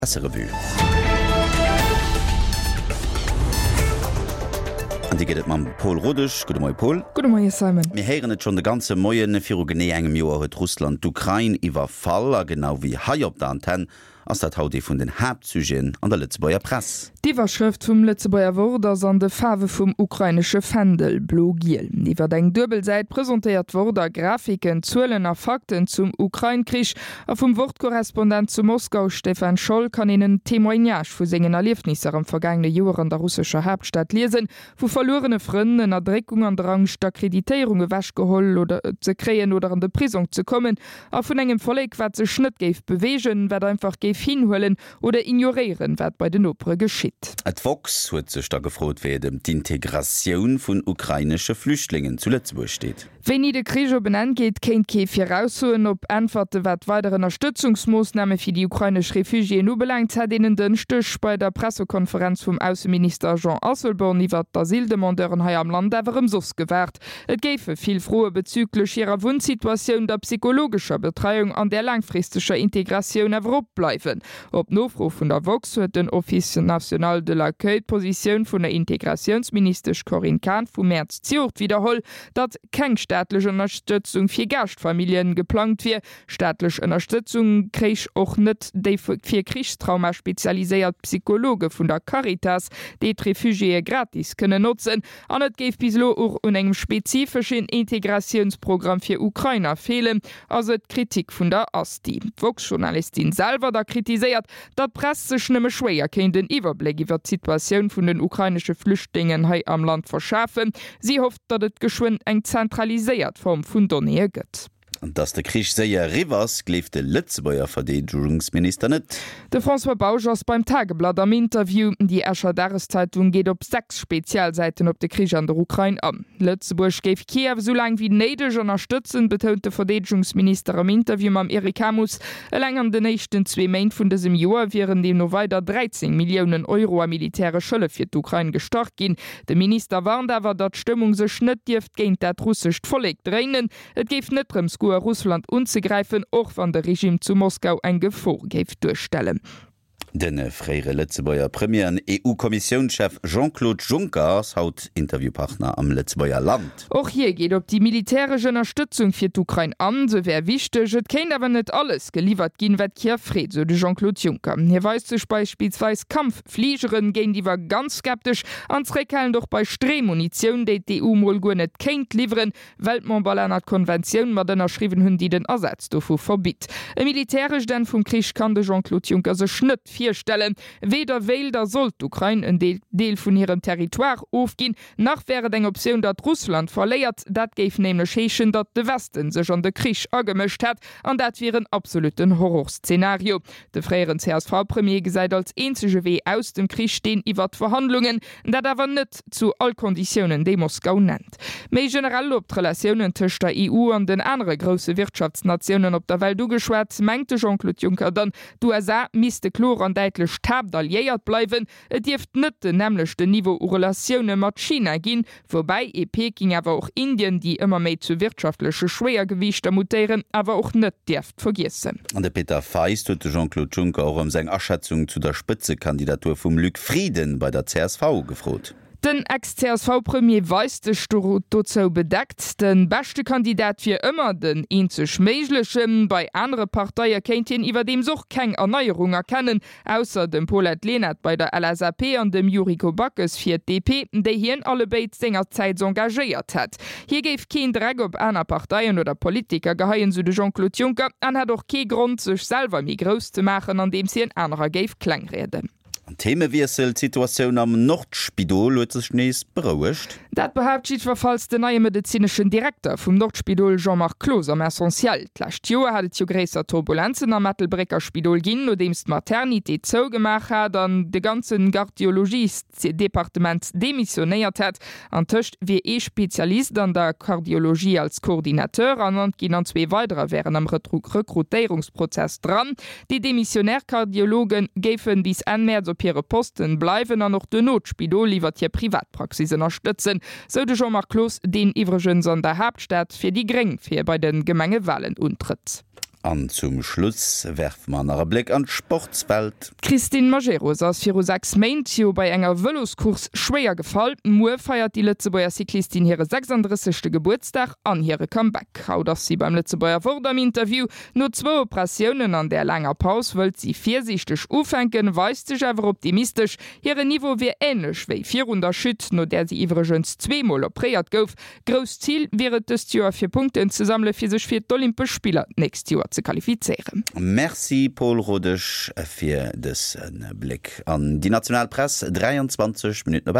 Presserevue. An déi gëtt et mam Pol Rodesch. Gudde Moie Pol. Gudde Moie Simon. Mir héieren et schonn de ganze Moien, Viru genee engem Joer huet Russland d'Ukrain iwwerfall. A genau wéi hei op der Antenn ass dat haut ee vun den Haaptsujeten an der Lëtzebuerger Press. D'Iwwerschrëft vum Lëtzebuerger Wort ass an de Faarwe vum ukrainesche Fändel, blo-giel. Iwwer eng duebel Säit presentéiert d'Wort a Grafiken, Zuelen a Fakten zum Ukrain-Krich. A vum Wort-Korrespondent zu Moskau, Stefan Scholl, kann een en Témoignage vu sengen Erliefnisser am vergaangene Joer an der russescher Haaptstad liesen, vu verluerene Frënn, Ënnerdréckung an der Angscht, d'Akkreditéierung ewechgeholl oder ze kréien oder an de Prisong ze kommen, a vun engem Vollek, wat sech net géif beweegen, wat einfach géif hinhuelen, Oder ignoréieren, wat bei den Nopere geschitt. D'woxx huet sech da gefrot, wéi et ëm d'Integratioun vun ukrainesche Flüchtlingen zu Lëtzebuerg steet. Wéini de Krich op en Enn geet, kéint kee viraussoen. Op Äntwerte wat weider Ënnerstëtzungsmoossname fir déi ukrainesch Refugiéen ubelaangt, hätt een en Dënschdeg bei der Pressekonferenz vum Ausseminister Jean Asselborn iwwert d'Asyldemandeuren hei am Land awer ëmsoss gewaart. Et géife vill Froe bezüglech hirer Wunnsituatioun, der psychologescher Betreiung an der laangfristeger Integratioun awer opbleiwen. Op Nofro vun der woxx huet den Office national de l'accueil d'Positioun vun der Integratiounsministesch Corinne Cahen vum Mäerz zejoert widderholl, datt keng staatlech Ënnerstëtzung fir Gaaschtfamilljen geplangt wier. Staatlech Ënnerstëtzung kréich och net déi fir Krichstrauma spezialiséiert Psychologe vun der Caritas, déi d'Refugiéë gratis kënnen notzen. An et géif bis elo och un engem spezifeschen Integratiounsprogramm fir Ukrainer feelen, ass et d'Kritik vun der Asti. D'woxx-Journalistin selwer da kritiséiert, datt d'Press sech nëmme schwéier kéint en Iwwerbléck iwwer d'Situatioun vun den ukrainesche Flüchtlingen hei am Land verschafen. Si hofft, datt et geschwënn eng zentraliséiert Form vun Donnéeë gëtt. Datt de Krich séier eriwwer ass, gleeft de Lëtzebuerger Verdeedegungsminister net. De François Bausch ass beim Tageblatt am Interview. Déi Escher Dageszeitung geet op 6 Spezialsäiten op de Krich an der Ukrain an. Lëtzebuerg géif Kiew esou laang wéi néideg ënnerstëtzen, betount de Verdeedegungsminister am Interview mam Eric Hamus. Eleng an den éischten zwee Méint vun dësem Joer wieren deemno weider 13 Milliounen Euro a militäresch Hëllef fir d'Ukrain gestach ginn. De Minister warnt awer, datt d'Stëmmung sech net dierft géint dat russescht Vollek dréinen. Et géif net drëms goe Russland unzegräifen, och wann de Regime zu Moskau eng Gefor géif duerstellen. De fréiere Lëtzebuerger Premier an EU-Kommissiounschef Jean-Claude Juncker ass haut Interviewpartner am Lëtzebuerger Land. Och hie geet op déi militäresch Ënnerstëtzung fir d'Ukrain an. Se wär wichteg, et kéint awer net alles geliwwert ginn, wat Kiew freet, sou de Jean-Claude Juncker. Hie weist sech beispillsweis Kampffligeren géintiwwer ganz skeptesch an zréckhalend och bei Streemunitioun, déi d'EU mol guer net kéint liwweren. Well d'Memberlänner d'Konventioun mat ënnerschriwwen hunn, déi den Asaz dovu verbitt. E militärescht Enn vum Krich kann de Jean-Claude Juncker sech net virstellen. Weder wéilt a sollt d'Ukrain en Deel vun hirem Territoire ofginn, nach wär et eng Optioun, datt Russland verléiert. Dat géif nämlech heeschen, datt de Westen sech an de Krich agemëscht hätt, an dat wier en absolutten Horrorszenario. De fréieren CSV-Premier gesäit als eenzege Wee aus dem Krich deen iwwert Verhandlungen, dat awer net zu all Konditiounen, déi Moskau nennt. Méi generell op d'Relatiounen tëscht der EU an den anere grousse Wirtschaftsnatiounen op der Welt ugeschwat, mengt de Jean-Claude Juncker dann, d'USA misste kloer an däitlech d'Haaptalliéiert bleiwen. Et dierft net den nämmlechten Niveau u Relatioune mat China ginn, woubäi ee Peking awer och Indien, déi ëmmer méi zu wirtschaftleche Schwéiergewiichter mutéieren, awer och net dierft vergiessen. An de Peter Feist huet de Jean-Claude Juncker och ëm seng Aschätzung zu der Spëtzekandidatur vum Luc Frieden bei der csv gefrot. Den Ex-CSV-Premier weist sech dozou bedeckt. De beschte Kandidat wier ëmmer den eenzeg méiglechen. Bei anere Parteie kéint hien iwwerdeems och keng Erneierung erkennen, ausser dem Paulette Lenert bei der LSAP an dem Yuriko Backes fir d'DP, déi hien allebéid sengerzäits engagéiert hätt. Hie géif keen Dreck op aner Parteien oder Politiker geheien, sou de Jean-Claude Juncker, an hätt och kee Grond, sech selwer méi grouss ze maachen, andeems hien anerer géif klengrieden. Themewiessel, D'Situatioun am Nordspidol huet sech nees berouegt. Dat behaapt jiddwerfalls den neie medezineschen Direkter vum Nordspidol Jean-Marc Cloos am Essentiel. D'lescht Joer hat et jo gréisser Turbulenzen am Ettelbrécker Spidol ginn, nodeems d'Maternité zougemaach hat an de ganze Gardiologiesdepartement demissionéiert hätt. Antëscht wier ee Spezialist an der Kardiologie als Coordinateur ernannt ginn an zwee weiderer wären am Rekrutéierungsprozess dran. Déi demissionär Kardiologe géife bis Enn Mäerz op hire Posten bleiwen an och duerno d'Spidol iwwert hir Privatpraxis ënnerstëtzen, sou de Jean-Marc Cloos, deen iwwregens an der Haaptstad fir déi Gréng fir bei de Gemengewalen untrëtt. An zum Schluss werfe mer nach e Bléck an d'Sportswelt. D'Christine Majerus ass viru 6 Méint jo bei enger Vëloscourse schwéier gefall. Muer feiert déi Lëtzebuerger Cyclistin hire 36. Gebuertsdag an hire Comeback. Haut ass si beim Lëtzebuerger Wort am Interview. No zwou Operatiounen an där laanger Paus wëllt si virsiichteg ufänken, weist sech awer optimistesch. Hiren Niveau wier änlech wéi virun der Chute, no där si iwwregens zweemol opréiert gouf. Grousst Zil wier et dëst Joer fir Punkten ze sammele fir sech fir d'Olympesch Spiller d'nächst Joer ze qualifizéieren. Merci Paul Rodesch fir dëse Bléck an déi national Press. 23 Minutten op 8.